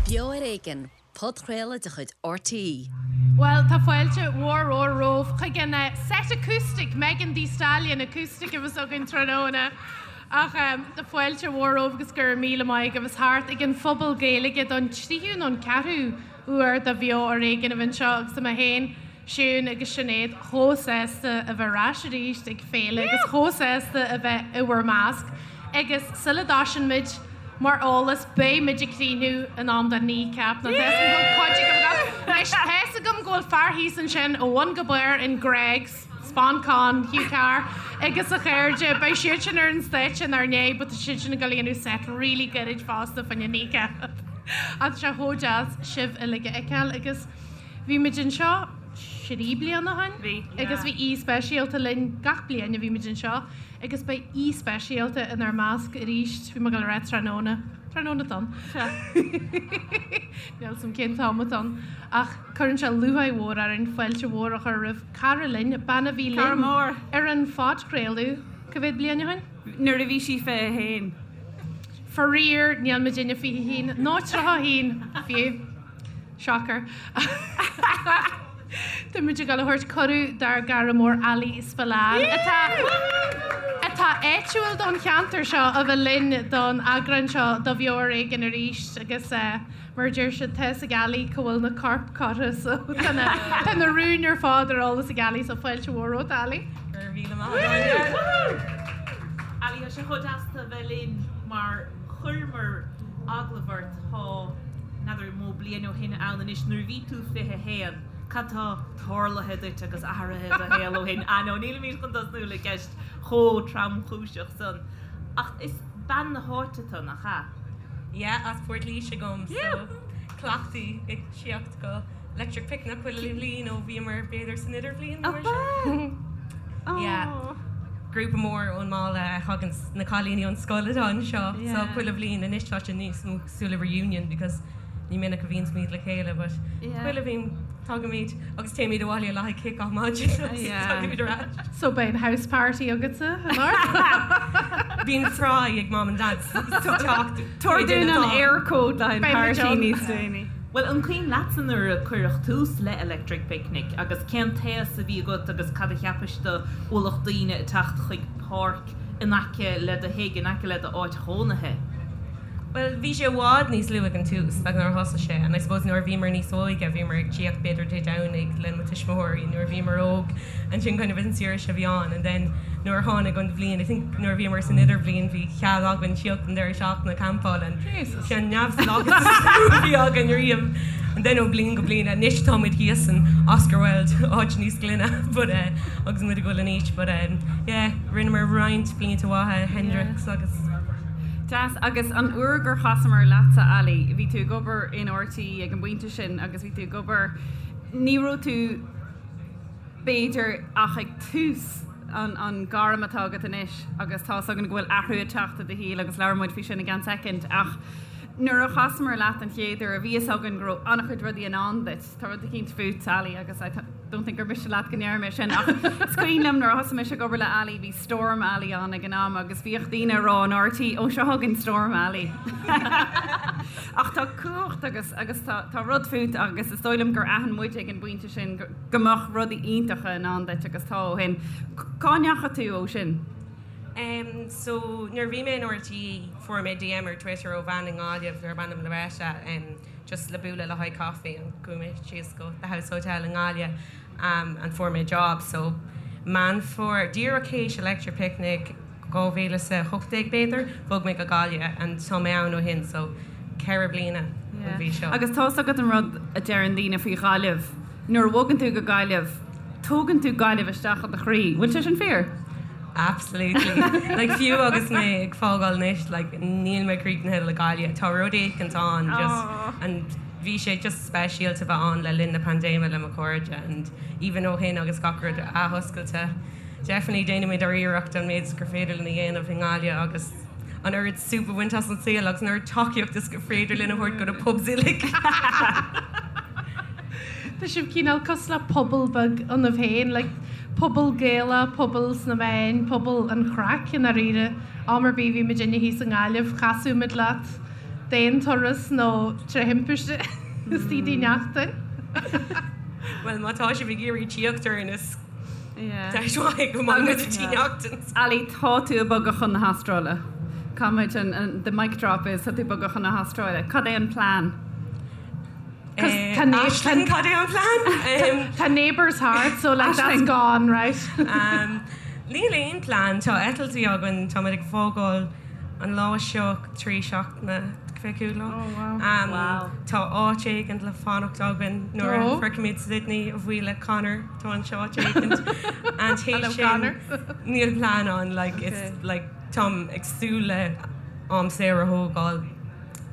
Beo ar Éigean, podchraoladh de chuid RTÉ. Bhuel, tá fáilte mhór mhór romhaibh chuig an set acoustic, Megan Thee Stallion acoustic a bheas againn tráthnóna. Ach tá fáilte mhór romhaibh agus go raibh míle maith agaibh as theacht ag an Phuball Gaeilge don tríú nó an ceathrú uair do Bheo ar Éigean a bheith anseo agus tá mé féin, Siún agus Sinéad chomh sásta a bheith ar ais arís ag féile agus chomh sásta a bheith i bhur measc. Agus sula dtoisíonn muid, mar eolas, beidh muid ag críochnú in am do Kneecap. Nó tá 'fhios agam go bhfuil cuid agaibh ag gabháil. Anois, tá 'fhios agam go bhfuil fear thíos ansin ó bhun go barr in Greggs, Sponcon, Hugh Carr agus a chairde. Beidh siad sin ar an stáitse inár ndiaidh but tá siad sin ag dul a dhéanamh set really gairid fosta fá choinne Kneecap. Ach tá sé chomh deas sibh uilig a fheiceáil agus bhí muid anseo 3 bliana ó shin? Bhí. Agus bhí aoi speisialta linn gach bliain a bhí muid anseo agus beidh aoi speisialta inár measc arís, bhí mé ag dul a rá tráthnóna, tráthnóna atá ann. Níl 'fhios a'm cén t-am atá ann ach cuireann sé lúcháir mhór orainn fáilte mhór a chur roimh cara linn, bean a bhí linn ar an phodchraoladh cá mhéad bliain ó shin? Nuair a bhí sí 21. Faraor, níl muidinne 21, nó 31 fiú. Shocker. Tá muid ag dul a thabhairt cuireadh dár gcara mór Ali Spillane, atá atá áitiúil don cheantar seo, a bheith linn don eagrán seo de Bheo Ar Éigean arís agus mar a deir siad, tá 'fhios ag Ali cá bhfuil na coirp curtha so tá na tá na rúin ar fad ar eolas ag Ali so fáilte mhór romhat Ali. Go raibh míle maith agat. Ali, tá sé chomh deas tú a bheith linn mar chuireamar agallamh ort tá n'fheadar an mó bliain ó shin ann anois nuair a bhí tú 21. Cad tá tarlaithe duit agus athraithe i do shaol ó shin? Ah no, nílimid chun tosnú le ceist chomh tromchúiseach san. Ach is bean na háite tú, nach ea? Yeah, as Port Laoise dhom, so cleachtaithe ag tíocht go Electric Picnic chuile bhliain ó bhíomar b'fhéidir san idirbhliain nó mar sin. Yeah. Grúpa mór ón mbaile a thagann na cailíní ón scoil atá anseo so chuile bhliain anois tá sé níos mó cosúil le reunion because ní minic a bhíonns muid le chéile but chuile bhliain tagaimid agus téimid abhaile le haghaidh kick off maidin agus tagaimid ar ais. So beidh an house party agatsa anocht? Bíonn fry ag mom and dad so teacht Tabhair dúinn an Eircode le haghaidh an party níos déanaí. Bhuel, an cuimhin leatsa nuair a cuireadh tús le Electric Picnic agus cén t-aos a bhí agat agus cad a cheapais de ualach daoine ag teacht chuig páirc in aice le do thigh, in aice le d'áit chónaithe? Bhuel, bhí sé i bhfad níos lú ag an tús, like nuair a thosaigh sé, and I suppose nuair a bhíomar níos óige, bhíomar ag tíocht b'fhéidir Dé Domhnaigh le mo tuismitheoirí nuair a bhíomar óg, and sin kind of an saoirse a bhí ann, and then nuair a tháinig an bhliain, I think nuair a bhíomar san idirbhliain bhí cead againn tíocht an deireadh seachtaine campáil and sin an neamhspleáchas is mó a bhí againn riamh. And then ó bliain go bliain, anois táimid thíos in Oscar Wilde, áit níos glaine, but eh, agus muid ag dul in aois, but eh, yeah, rinneamar roinnt blianta mhaithe, Hendrix agus. Deas. Agus an uair gur chasamar leatsa, Ali, bhí tú ag obair in RTÉ ag an bpointe sin agus bhí tú ag obair, ní raibh tú b'fhéidir ach ag tús an an gairm atá agat anois agus tá's againn go bhfuil athrú ag teacht i do shaol agus labhróidh muid faoi sin i gceann soicind ach nuair a chasamar leat an chéad uair bhí fhios againn go raibh an-chuid rudaí i ndán duit. Tá rud eicínt fút, Ali, agus I don't think gur miste leat go ndéarfaidh mé sin, ach is cuimhin liom nuair a thosaigh mise ag obair le Ali, bhí Storm Ali ann ag an am agus bhíodh daoine ag rá in RTÉ, ó seo chugainn Storm Ali. Ach tá cumhacht agus agus tá tá rud fút agus is dóigh liom gur aithin muid ag an bpointe sin go go mbeadh rudaí iontacha i ndán duit agus tá ó shin. Cá ndeachaigh tú ó sin? Em so nuair a bhí mé in RTÉ fuair mé DM ar Twitter ó bhean i nGaillimh darb ainm Loretta em just le bualadh le haghaidh coffee and chuaigh mé síos go The House Hotel i nGaillimh um and fuair mé job so Meán Fómhair, díreach théis Electric Picnic 2018 b'fhéidir, bhog mé go Gaillimh and tá mé ann ó shin so 4 bliana an mhí seo. Agus tá's agat an rud a deireann daoine faoi Ghaillimh, nuair a bhogann tú go Gaillimh, tógann tú Gaillimh isteach i do chroí. Bhfuil sé sin fíor? Absolutely. Like fiú agus mé ag fágáil anois like níl mé críochnaithe le Gaillimh. Tá rud éicint ann just and bhí sé just speisialta bheith ann le linn na paindéime le mo chairde and even ó shin agus gach rud athoscailte definitely déanaimid ár iarracht an méid is gur féidir linn a dhéanamh i nGaillimh agus an oiread súp a bhaint as an saol agus an oiread tacaíocht is gur féidir linn a thabhairt go na pubs uilig. Tá sibh cineál cosúil le pobal beag ionaibh féin, like pobal Gaelach, pobal sna meáin, pobal an chraic i ndáiríre. Am ar bith a bhí muidinne thíos i nGaillimh, chasadh muid leat. D'aon turas nó tré thimpiste istigh i dTí Neachtain. Bhuel, má tá sibh ag iarraidh tíocht orainn is deis mhaith go mbeidh muid i Tí Neachtain. Ali, tá tú ag bogadh chun na hAstráile. Caithfimid an, the mic drop is tá tú ag bogadh chun na hAstráile. Cad é an plean? Aisling, cad é an plean? Tá neighbours thart, so like that's gone, right? Níl aon plean. Tá eitiltí againn, táimid ag fágáil an lá seo 3 seachtaine, 25 lá. Oh wow. Tá áit éigin le fanacht againn nuair a shroichimid Sydney, a bhuí le Conor, tá anseo áit éigin. And théis sin, níl plean ann, like it's like táim ag súil le am saor a thógáil.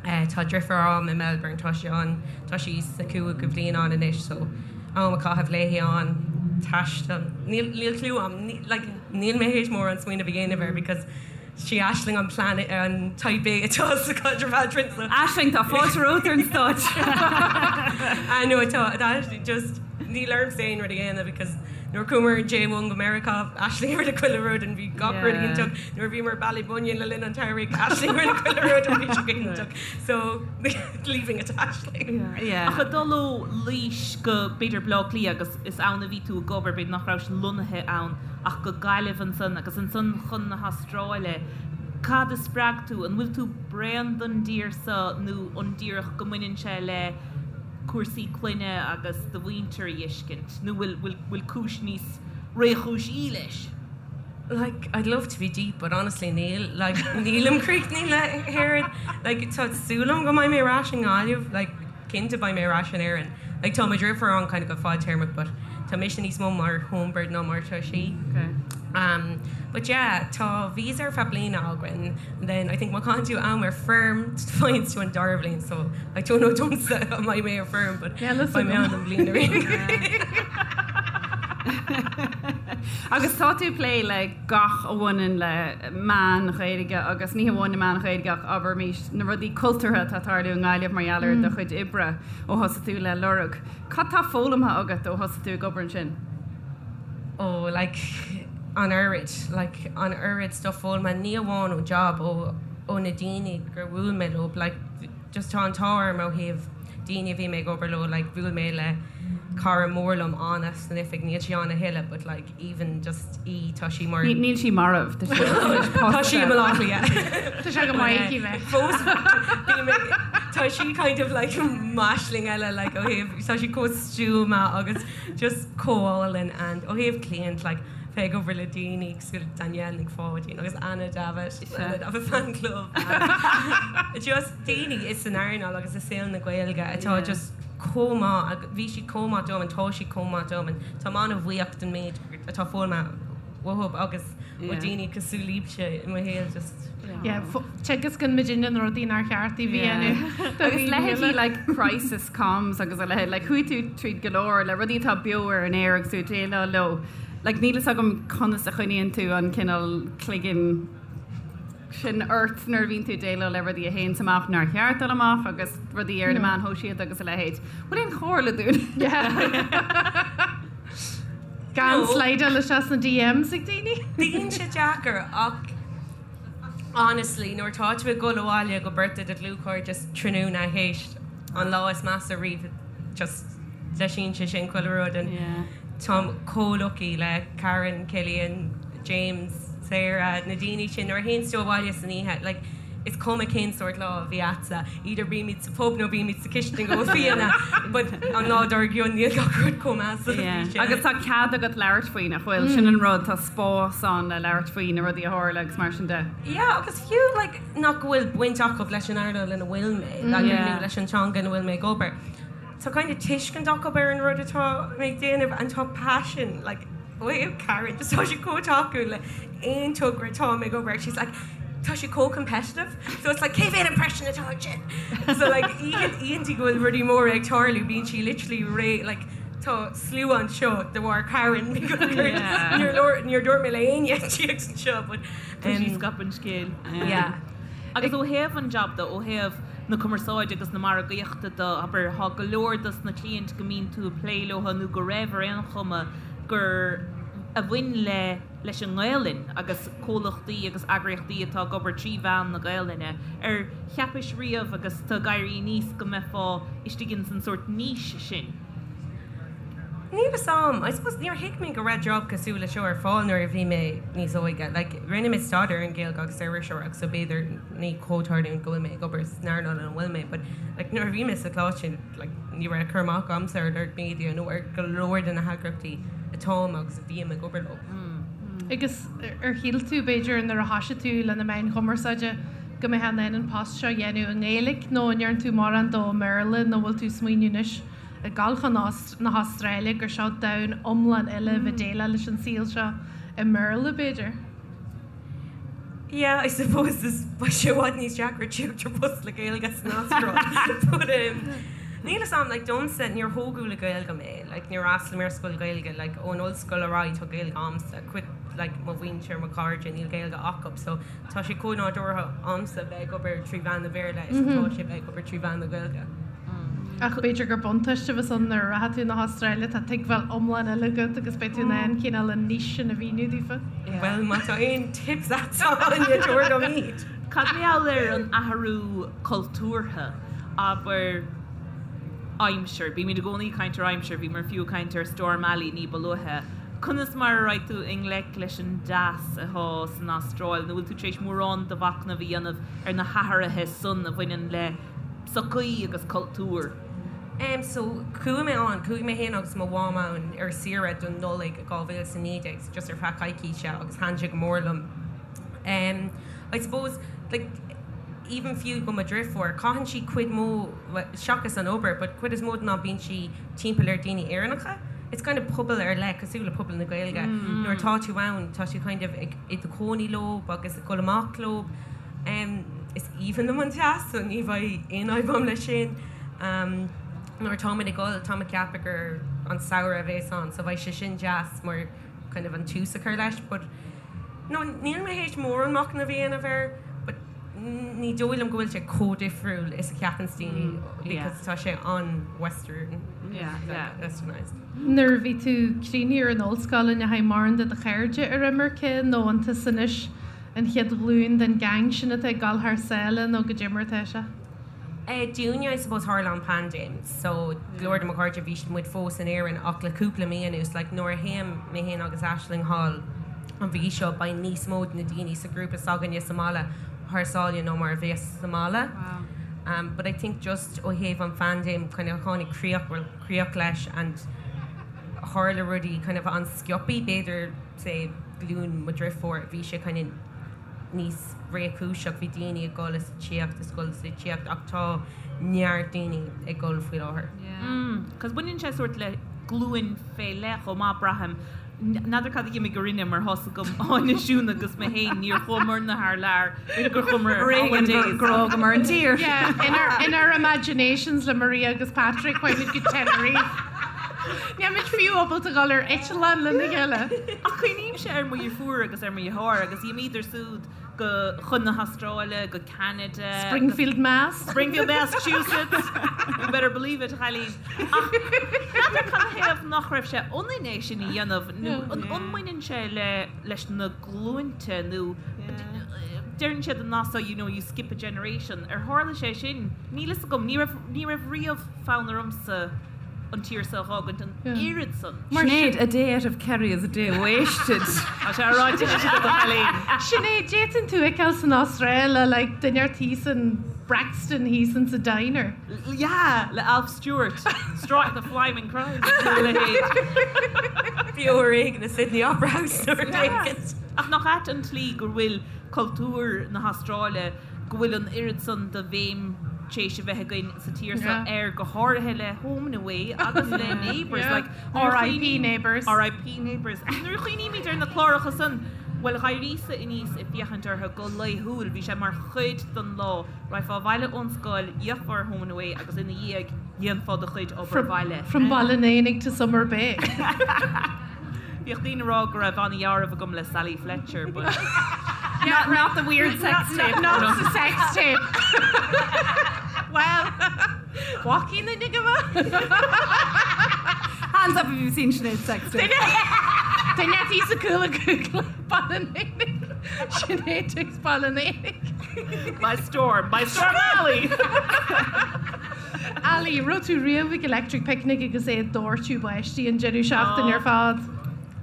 Tá deirfiúr a'm i Melbourne, tá sí ann, tá sí sa chúigiú bhliain ann anois so am a chaitheamh léi ann, taisteal, níl, níl clue a'm, like níl mé théis mórán smaoineamh a dhéanamh air because sí Aisling an plan, an type A atá sa chaidreamh eadrainn so. Aisling, tá fáilte romhat ar an stáitse. Ah no, tá, tá, just níl ormsa aon rud a dhéanamh because nuair a chuamar ar an J1 go Meiriceá, Aisling a rinne chuile rud and bhí gach rud iontach. Nuair a bhíomar i Ballybunion le linn an tsamhraidh, Aisling rinne chuile rud and bhí sé go hiontach. So, leaving it to Aisling. Yeah. Ach ag dul ó Laois go b'fhéidir Baile Átha Cliath agus is ann a bhí tú ag obair, b'fhéidir nach rabhais lonnaithe ann ach go Gaillimh ansan agus ansan chun na hAstráile, cad a spreag tú? An bhfuil tú bréan den dtír so nó an díreach go mbaineann sé le cúrsaí clainne agus do mhuintir a fheiscint nó bhfuil, bhfuil, bhfuil cúis níos réchúisí leis? Like, I'd love to be deep, but honestly níl. Like, nílim críochnaithe le hÉirinn. Like, tá súil agam go mbeidh mé ar ais i nGaillimh. Like, cinnte beidh mé ar ais in Éirinn. Like, tá mo dheirfiúr ann kind of go fadtéarmach, but tá mise níos mó mar homebird ná mar atá sí. Okay. Um, but yeah, tá visa ar feadh bliana againn, and then I think má chaitheann tú am ar feirm, faigheann tú an dara bhliain, so I don't know domsa an mbeidh mé ar feirm, but Yeah, listen. beidh mé ann don bhliain ar aon Agus tá tú ag plé le gach a bhaineann le meáin Ghaeilge agus ní hamháin na meáin Ghaeilge ach abraimis na rudaí cultúrtha atá ag tarlú i nGaillimh mar gheall ar do chuid oibre ó thosaigh tú le Lorg. Cad tá foghlamtha agat ó thosaigh tú ag obair ansin? Oh like an oiread, like an oiread stuff foghlamtha, ní amháin ón job, ó ó na daoine gur bhuail mé leo, like just tá an t-ádh orm ó thaobh daoine a bhí mé ag obair leo, like bhuail mé le cara mór liom, Anna, san oifig, níl sí ann a thuilleadh but like even just í, tá sí mar. Níl sí marbh, tá sí anois pósta. Tá sí i mBaile Átha Cliath. Tá sé go maith aici bheith. Fós bím ag, tá sí kind of like m'aisling eile like ó thaobh, tá sí chomh stuama agus just chomh álainn and ó thaobh cliant like bheith ag obair le daoine cosúil le Danielle Nic Pháidín agus Anna Davitt, Anna Davitt fan club just daoine is san earnáil agus i saol na Gaeilge atá just chomh maith agus bhí siad chomh maith dom and tá siad chomh maith dom and táim an-bhuíoch den méid atá foghlamtha uathu agus ó daoine cosúil libhse i mo shaol just Yeah, teagascann muidinne na rudaí nár cheart daoibh a dhéanamh. Agus leithéidí like crisis comms agus a leithéid, like chuaigh tú tríd go leor le rudaí atá beo ar an aer agus tú ag déileáil leo. Like níl fhios agam conas a choinníonn tú an cineál cloigeann sin ort nuair a bhíonn tú ag déileáil le rudaí a théanns amach nár cheart dul amach agus rudaí ar na meáin shóisialta agus a leithéid. Bhfuil aon chomhairle dúinn? Gan slideáil isteach sna DMs ag daoine. Bíonn sé deacair ach honestly nuair atá tú ag dul abhaile go beirt de do dhlúthchairde tráthnóna théis an lá is measa riamh just deisíonn sé sin chuile rud and táim chomh lucky le Karen, Cillian, James, Sarah, na daoine sin nuair a théanns tú abhaile san oíche like is cuma cén sórt lá a bhí a'dsa, either bímid sa phub nó bímid sa chistin ag ól fíona, but an lá dár gcionn níl gach rud chomh measa is a bhí sé. Agus tá cead agat labhairt faoi, nach bhfuil? Sin an rud, tá spás ann le labhairt faoi na rudaí a tharla agus mar sin de. Yeah, agus fiú like nach bhfuil baint acu leis an earnáil ina bhfuil mé, like nó leis an teanga ina bhfuil mé ag obair, tá kind of tuiscint acu ar an rud atá mé ag déanamh and tá passion like ó thaobh Karen just tá sí chomh tacúil le aon togra atá mé ag obair she's like tá sí chomh competitive so it's like cé mhéad impression atá ansin so like oícheanta go bhfuil rudaí móra ag tarlú bíonn sí literally réidh like tá slua anseo de bharr Karen níor dúirt mé le éinne tíocht anseo but Tá sí ag scaipeadh an scéil. yeah. Agus ó thaobh an job de, ó thaobh na cumarsáide agus na margaíochta de, abair, tá go leor dos na cliaint go mbíonn tú ag plé leo nó go raibh ar aon chuma gur a bhain le. leis an nGaelainn agus comhlachtaí agus eagraíochtaí atá ag obair trí mheán na Gaelainne. Ar cheapais riamh agus tú ag éirí aníos go mbeifeá istigh ins an sórt niche sin? Níl fhios a'm. I suppose níor thuig mé go raibh job cosúil le seo ar fáil nuair a bhí mé níos óige. Like, rinne mé staidéar ar an Ghaeilge agus ar iriseoireacht so b'fhéidir ní comhtharlúint go bhfuil mé ag obair san earnáil ina bhfuil mé but like nuair a bhí mé sa choláiste like ní raibh cur amach agamsa ar Lorg Media nó ar go leor de na heagraíochtaí atáim agus a bhím ag obair leo. Agus ar shíl tú, b'fhéidir, nuair a thoisigh tú le na meáin chumarsáide go mbeifeá in ann an post seo a dhéanamh i nGaeilge nó an ndearna tú mórán dó i mBéarla nó bhfuil tú ag smaoineamh anois ag gabháil chun na hAstráile gur seo domhan iomlán eile a bheith déileáil leis an saol seo i mBéarla, b'fhéidir? Yeah, I suppose is beidh sé i bhfad níos deacra tíocht ar post le Gaeilge san Astráil. But um, níl fhios a'm, like domsa, níor thógadh le Gaeilge mé, like níor fhreastail mé ar scoil Ghaeilge, like ón ollscoil ar aghaidh tá Gaeilge a'msa, cuid like mo mhuintir, mo chairde, níl Gaeilge acu, so tá sé chomh nádúrtha a'msa bheith ag obair trí mheán na Béarla is atá sé bheith ag obair trí mheán na Gaeilge. Ach b'fhéidir gur buntáiste a bheas ann nuair a rachaidh tú na hAstráile, tá tuigbheáil iomlán eile agat agus beidh tú in ann cineál an niche sin a mhíniú daofa. Bhuel, má tá aon tips agat Áine, tabhair dom iad! Cad mar gheall ar an athrú cultúrtha, abair aimsir, bímid i gcónaí ag caint ar aimsir, bhíomar fiú ag caint ar Storm Ali ní ba luaithe. Conas mar a raghadh tú i ngleic leis an dteas atá san Astráil, nó bhfuil tú tar éis mórán de mhachnamh a dhéanamh ar na hathruithe san a bhaineann le sochaí agus cultúr. Em so chuaigh mé ann, chuaigh mé féin agus mo mham ann ar saoire don Nollaig 2019 so just ar feadh coicíse agus thaitin sé go mór liom. Em I suppose like even fiú go mo dhriofúr, caitheann sí cuid mó, well seachas an obair but cuid is mó den am bíonn sí timpeall ar daoine Éireannacha. It's kind of pobal ar leith cosúil le pobal na Gaeilge. Nuair atá tú ann tá tú kind of ag i do chónaí leo agus ag dul amach leo. Is aoibhinn liom an teas so ní bheidh aon fhadhb agam leis sin. Nuair atáimid ag dul, táim ag ceapadh gur an samhradh a bhéas ann so beidh sé sin deas mar kind of an tús a chur leis but no níl mé théis mórán machnaimh a dhéanamh air but ní dóigh liom go bhfuil sé chomh difriúil is a cheapann daoine because tá sé an-western, westernised. Nuair a bhí tú críochnaithe ar an ollscoil an ndeachaigh mórán de do chairde ar imirce nó an tusa anois An chéad ghlúin den gang sin atá ag dul thar sáile nó goidé mar atá sé? Dúinne, I suppose, tharla an paindéim so go leor de mo chairde bhí muid fós in Éirinn ach le cúpla mí anuas, like nuair a théim mé féin agus Aisling thall an mhí seo beidh níos mó de na daoine sa ghrúpa s'againne sa mbaile thar sáile ná mar a bheas sa mbaile. Um, but I think just ó thaobh an phaindéim kind of tháinig críoch, well, críoch leis and tharla rudaí kind of an-sciobthaí, b'fhéidir say glúin mo dhriofúr, bhí sé kind of níos réchúiseach, bhí daoine ag dul is ag tíocht is dul is ag tíocht ach tá neart daoine ag dul faoi láthair. Cos baineann sé sórt le glúin fé leith chomh maith, braithim. N'fheadar cad a d'imigh orainne mar tá's agam Áine, Siún agus mé féin, níor chuamarna thar lear, b'fhéidir gur chuamar ar holidays. Gur fhágamar an tír. Yeah, in our, in our imaginations le Maria agus Patrick, chuaigh muid go Tenerife. Níl muid fiú ábalta dul ar eitleán lena chéile. Ach cuimhnímse ar mo dheirfiúr agus ar mo dheartháir agus d'imíodar súd go chun na hAstráile, go Ceanada. Springfield, Mass. Springfield, Massachusetts. You better believe it, a chailín. Ach n'fheadar cad a thaobh nach raibh sé ionainn é sin a dhéanamh nó an mbaineann sé le leis na glúinte nó deireann siad an nath so you know you skip a generation. Ar tharla sé sin? Níl fhios agam. Ní raibh ní raibh riamh fonn ormsa an tír seo a dh'fhágaint an oiread san. Sinéad, a day out of Kerry is a day wasted. Tá sé ráite anois agat a chailín. Sinéad, d'fhéadfainn tú a fheiceáil san Astráil le like duine ar thíos in Branxton thíos in sa diner. Yeah, le Alf Stewart. Strike the flaming Christ nó a leithéid. Beo ar éigean i Sydney Opera House nó rud éigin. Ach nach ait an tslí go bhfuil cultúr na hAstráile go bhfuil an oiread san de bhéim tar éis a bheith againn sa tír seo air, go háirithe le Home and Away agus le Neighbours. Like, R.I.P. Neighbours. R.I.P. Neighbours. Ach nuair a chuimhnímid ar na cláracha san, bhuel, dh'éiríos-sa aníos ag féachaint orthu go laethúil, bhí sé mar chuid den lá. Raghfá abhaile ón scoil, d'fhéachfá ar Home and Away agus ina dhiaidh, dhéanfá do chuid obair bhaile. From Baile an Éanaigh to Summer Bay. Bhíodh daoine ag rá go raibh an-dhealramh agam le Sally Fletcher but. Not, not the weird sex tape. Not the sex tape. Well, walking in go Hands up if you've seen Sinéad's sex tape. Duine tí sa cúla Google. Baile an Éanaigh. Sinéad takes Baile an Éanaigh. By storm, by storm Ali! Ali, raibh tú riamh ag Electric Picnic agus é ag doirteadh báistí an deireadh seachtaine ar fad?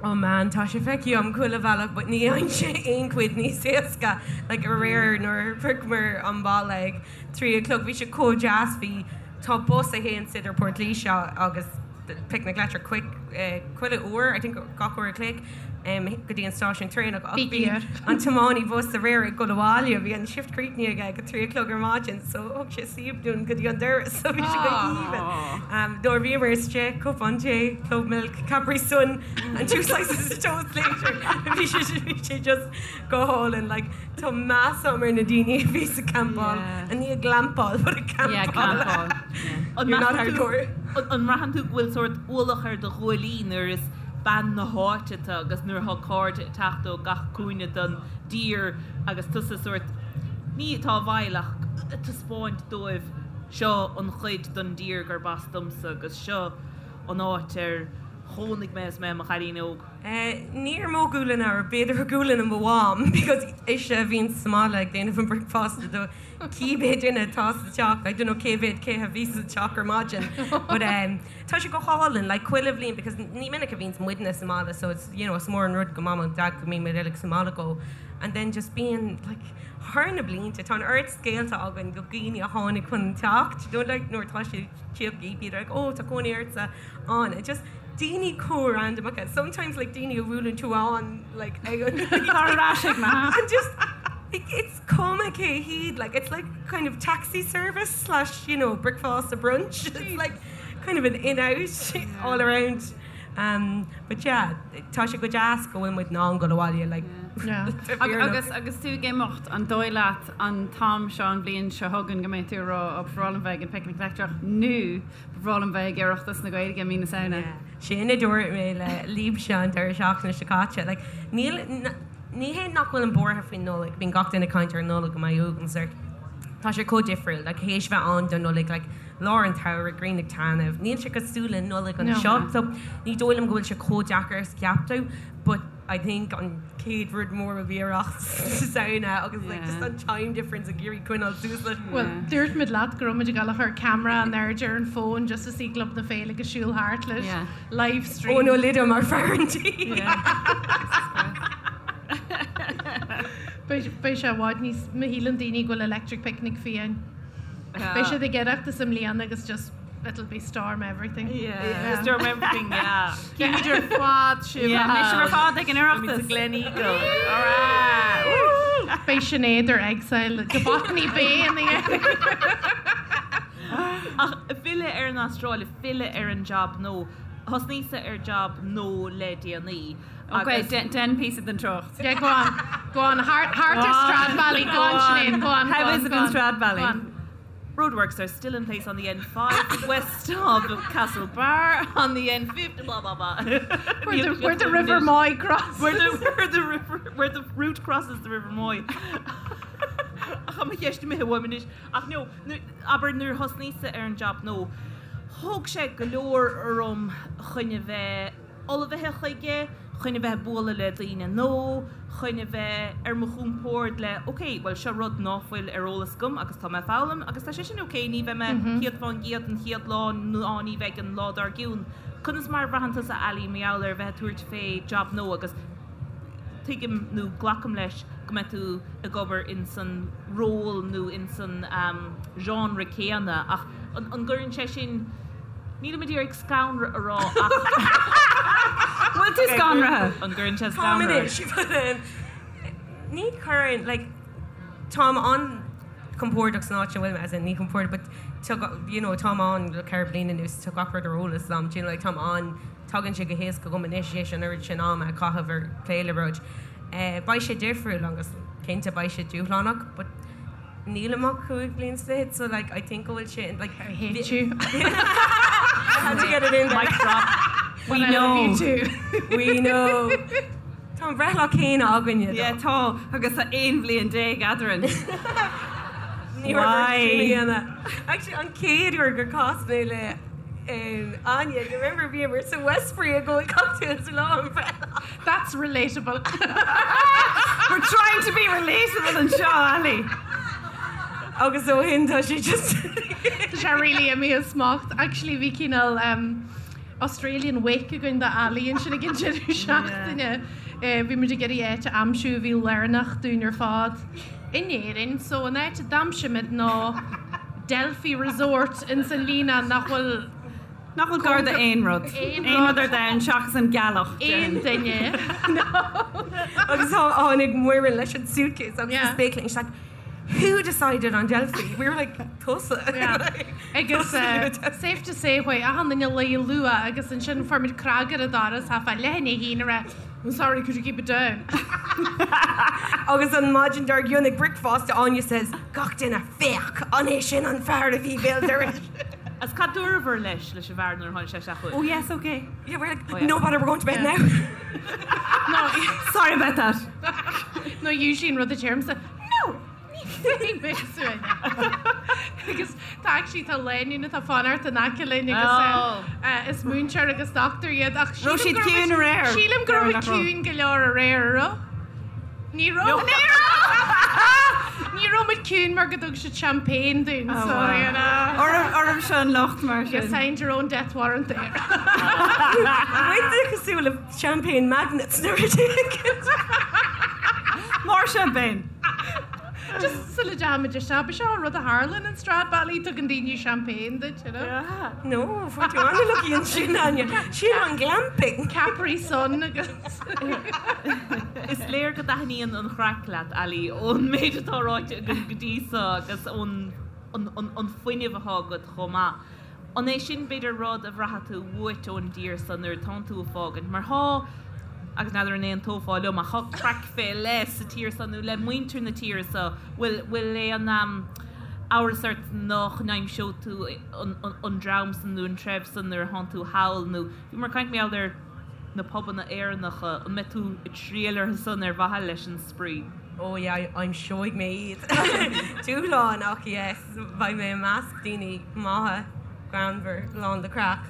Oh man, tá sé feicthe agam chuile bhealach but ní fhaigheann sé aon chuid níos éasca. Like aréir nuair a shroicheamar an baile ag 3 a chlog bhí sé chomh deas, bhí, tá bus a théann idir Port Laoise agus Picnic Leictreach quick chuile uair, I think gach uair a chloig, go dtí an stáisiún traenach ach bhí an tiománaí bus aréir ag dul abhaile, bhí an shift críochnaithe aige ag 3 a chlog ar maidin so thug sé síob dúinn go dtí an doras so bhí sé go haoibhinn. Nuair a bhíomar istigh, cupán tae, club milk, Capri Sun and two slices of toast later bhí sé bhí sé just go hálainn like tá meas agam ar na daoine a bhí ag campáil and ní ag glampáil but ag campáil. You're not hardcore. An mbraitheann tú go bhfuil sórt ualach ar do ghuaillí nuair is bean na háite tú agus nuair atá cairde ag teacht ó gach cúinne den dtír agus tusa sórt, ní atá i bhfeighil ach ag taispeáint dóibh seo an chuid den dtír gurb as domsa agus seo an áit ar chónaigh mé is mé i mo chailín óg. Ní ar mo ghualainn ach b'fhéidir ar ghualainn mo mham because ise a bhíonn sa mbaile ag déanamh an bricfeasta do cibé duine atá sa teach, I don't know cé mhéad cé a bhí sa teach ar maidin but tá sé go hálainn like chuile bhliain because ní minic a bhíonns muidne sa mbaile so it's you know is mór an rud go mam and dad go mbíonn muid uilig sa mbaile go and then just bíonn like thar na blianta tá an oiread scéalta againn go dhaoine a tháinig chun an teach you know like nuair atá sé tíocht bíonn like oh tá cónaí ortsa ann and just daoine chomh randamacha sometimes like daoine a bhuaileann tú ann like ag an Tá ar ais ag mo and just like it's cuma cé hiad like it's like kind of taxi service slash you know bricfeasta brunch it's like kind of an in out all around um but yeah tá sé go deas go bhfuil muid in ann dul abhaile like Yeah. Agus agus tú ag imeacht an dóigh leat an t-am seo an bhliain seo chugainn go mbeidh tú ag rá ó ba bhreá liom bheith ag an Picnic Leictreach nó ba bhreá liom bheith ag Oireachtas na Gaeilge i mí na Samhna. Yeah. Sin a dúirt mé le libhse an deireadh seachtaine seo caite. Like, níl, ní hé nach bhfuilim buartha faoin Nollaig, bíonn gach duine ag caint ar an Nollaig go mbeidh uaigneas ort. Tá sé chomh difriúil, like, théis bheith ann don Nollaig, like, lár an tsamhraidh, grian ag taitneamh, níl sé cosúil le Nollaig anseo, so ní dóigh liom go bhfuil sé chomh deacair is a cheap tú, but I think an chéad rud mór will be Oireachtas na Samhna agus like just an time difference ag iarraidh coinneáil suas leis. Bhuel, dúirt muid leat go raibh muid ag dul a chur ceamara in airde ar an fón just to see Club na Féile ag siúl thart leis. Live stream. Eoin Ó Loideáin mar fear an tí. Beidh sé i bhfad níos, má shíleann daoine go bhfuil Electric Picnic fiáin. Beidh siad ag Oireachtas i mbliana agus just it'll be storm everything. Yeah. Storm everything, yeah. Címid ar fad sibh. Yeah, beidh sibh ar fad ag an Oireachtas. Gleneagle. All right. Beidh Sinéad ar exile go Botany Bay in the end. Ach filleadh ar an Astráil, filleadh ar an jab nua. Thosnaíos-sa ar jab nua le déanaí. Ok, dein píosa den trácht. Yeah, go on. Go on. Thart ar Stradbally. Go on, Sinéad. Go on. How is it in Stradbally? Roadworks are still in place on the N5 west of Castlebar on the N50 blah blah blah. Where the, where the River Moy crosses. Where the, where the river where the route crosses the River Moy. Ach mo cheist imithe uaim anois. Ach no, abair nuair thosnaíos-sa ar an job nua, thóg sé go leor orm chun a bheith ullmhaithe chuige, chun a bheith ag bualadh le daoine nua, chun a bheith ar mo chompord le ok, bhuel seo rud ná fuil ar eolas agam agus tá mé ag foghlaim agus tá sé sin ok, ní bheidh mé 100% an chéad lá ná ní bheidh an lá dár gcionn. Conas mar a bhraitheann tusa Ali mar gheall ar bheith ag tabhairt fé job nua agus tuigim nó glacaim leis go mbeidh tú ag obair in san ról nó in san genre céanna ach an gcuireann sé sin, nílim ag iarraidh scanradh a rá ach. Bhfuil tú scanraithe? An gcuireann sé Táim scanradh anois but ní chuireann like táim an-chompordach san áit ina bhfuil mé as in ní compordach but tá you know táim ann le 4 bliana anuas tá gach rud ar eolas agam do you know like táim an Tagann sé go héasca dhom anois, théis an oiread sin ama a chaitheamh ar plé le rud. Beidh sé difriúil agus cinnte beidh sé dúshlánach but nílim ach 5 bliain is fichead so like I think go bhfuil sé like I hate you. I had to get it in there. Mic drop. We But I love know. you too. We know. Tá an breithlá céanna againne Yeah, tá agus tá 11 bhliain eadrainn. Ní raibh Why? sin a dhéanamh. Actually an chéad uair gur chas mé le. Áine, you remember bhíomar sa Westbury ag ól cocktails lá an bhreithlá. That's relatable. We're trying to be relatable anseo, Ali. Agus ó shin tá sé just. Tá sé really imithe as smacht. Actually bhí cineál Australian wake againn do Ali ansin ag an deireadh seachtaine. Bhí muid ag iarraidh áit a aimsiú a bhí lárnach dúinn ar fad in Éirinn. So an áit a d'aimsigh muid ná Delphi Resort ins an Líonán nach bhfuil Nach bhfuil gar d'aon rud. Aon rud ar domhan seachas an ghealach. Aon duine. Agus tháinig Muireann leis an suitcase agus the spéaclaí and she's like, Who decided on Delphi? We were like, tusa. Agus safe to say chuaigh achan duine a luí luath agus ansin fuair muid cnag ar an doras thart fá leath i ndiaidh a haon ag rá I'm sorry, could you keep it down? Agus an maidin dár gcionn ag bricfeasta Áine says, gach duine, féach, an é sin an fear a bhí béal dorais? Agus cad dúrabhair leis, leis an bhfear nuair a tháinig sé isteach chugaibh? Oh yes, okay. Yeah, we're like, oh, yeah. no bother, we're going to bed now. No, sorry about that. No, usually an rud a deirimse, no, ní bheidh mé suain. Agus tá actually tá lánúin atá ag fanacht in aice linn agus oh. eh, is múinteoir agus dochtúir iad ach Raibh siad ciúin aréir. Sílim go raibh ciúin go leor aréir, raibh? Ní raibh. Ní raibh! Ní raibh muid ciúin mar go dtug siad champagne dúinn, oh, so, you know. Oraibhse an locht mar sin. You signed your own death warrant there. Muid cosúil le champagne magnets nuair a More champagne. Just sula dtéimid isteach, ba seo rud a tharlaíonn in Stradbally, tugann daoine champagne duit, you know. Yeah. No, fuair tú an-lucky ansin, Áine. Sin an glamping. Capri Sun agus. Is léir go dtaitníonn an chraic leat, Ali, ón méid atá ráite againn go dtí seo agus ón an fuinneamh atá agat chomh maith. An é sin, b'fhéidir, rud a bhraitheann tú uait ón dtír so nuair atánn tú ag fágaint? Mar thá, agus n'fheadar an aontófá liom, ach thá craic fé leith sa tír so nó le muintir na tíre so. Bhfuil, bhfuil aon amhras ort nach n-aimseoidh tú an dream san nó an treibh san nuair atánn tú thall nó bhíomar ag caint mar gheall ar na pubanna Éireannacha, an mbeidh tú ag triall orthu san ar mhaithe leis an spraoi? Oh yeah, aimseoidh mé iad. Dúshlán ach yes, beidh mé i measc daoine maithe, greannmhar, lán de craic.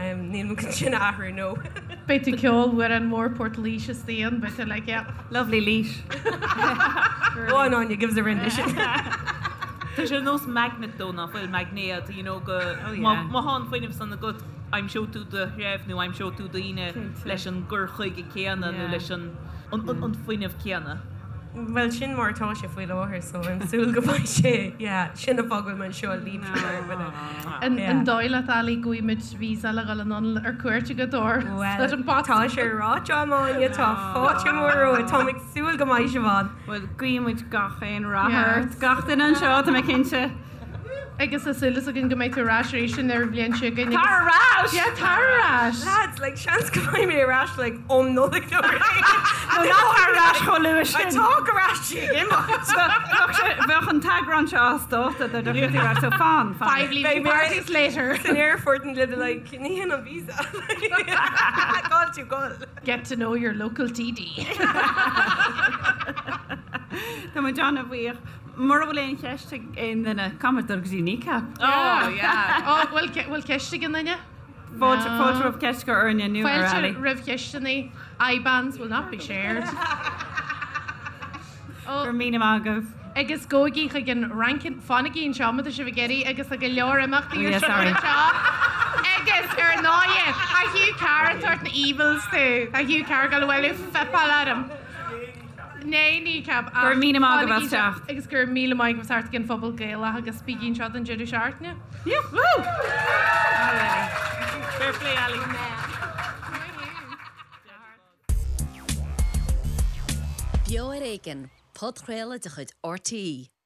Níl mé chun sin a athrú, no. Beidh tú ag ceol amhrán mór Port Laoise istigh ann, beidh tú like yeah. Lovely Laois. Go on Áine, give us a rendition. Tá sé ar nós magnet dó, nach bhfuil, maighnéad, you know, go, má thá an fuinneamh san agat, aimseoidh tú do threibh nó aimseoidh tú daoine leis an gcur chuige céanna nó leis an an fuinneamh céanna. Bhuel, sin mar atá sé faoi láthair so I'm súil go mbeidh sé, yeah, sin an fáth go bhfuil mé anseo libh. An dóigh leat, Ali, go bhfaighidh muid visa le dhul anonn ar cuairt agat or Bhuel, tá sé ráite agam Áine, tá fáilte mhór romhat, táim ag súil go mbeidh sibh ann. Bhuel, guíonn muid gach aon rath ort, gach duine anseo, tá mé cinnte. Agus tá súil againn go mbeidh tú ar ais arís an bhliain seo chugainn. Tar ar ais! Yeah, tar ar ais! Lads, like, seans go mbeidh mé ar ais, like, um Nollaig nó rud éigin. No, ná tar ar ais chomh luath sin. Tá go ais ag imeacht. Bheadh an t-eagrán seo as dáta dá dtiocfadh tú ar ais, so fan, fan. Five leaving parties later. San airport and they'll be like, ní hin an visa. Call tú gol. Get to know your local TD. Tá muid an-bhuíoch. Mura bhfuil aon cheist ag aon duine, caithfidh muid dul go dtí Kneecap. Oh, yeah. Oh, bhfuil bhfuil ceist ag aon duine? Fáilte fáilte roimh ceist go orainne nó ar Fáilte Ali. roimh cheisteanna. IBANs will not be shared. Oh. Go raibh míle maith agaibh. Agus gabhaigí chuig an Rankin, fanaigí anseo má tá sibh ag iarraidh agus tá go leor imeachtaí Oh, ar yeah, siúl sorry. anseo. Agus ar ndóighe, tá Hugh Carr ag tabhairt na evils tú. Tá Hugh Carr ag dul abhaile fuipeáil orm. Né Kneecap ach Go raibh míle maith agaibh as fanaigí teacht. Agus go raibh míle maith agaibh as teacht ag an Phuball Gaelach agus bígí anseo don deireadh seachtaine. Yeah, woo! Fair play, Ali. Beo ar Éigean, podchraoladh de chuid RTÉ.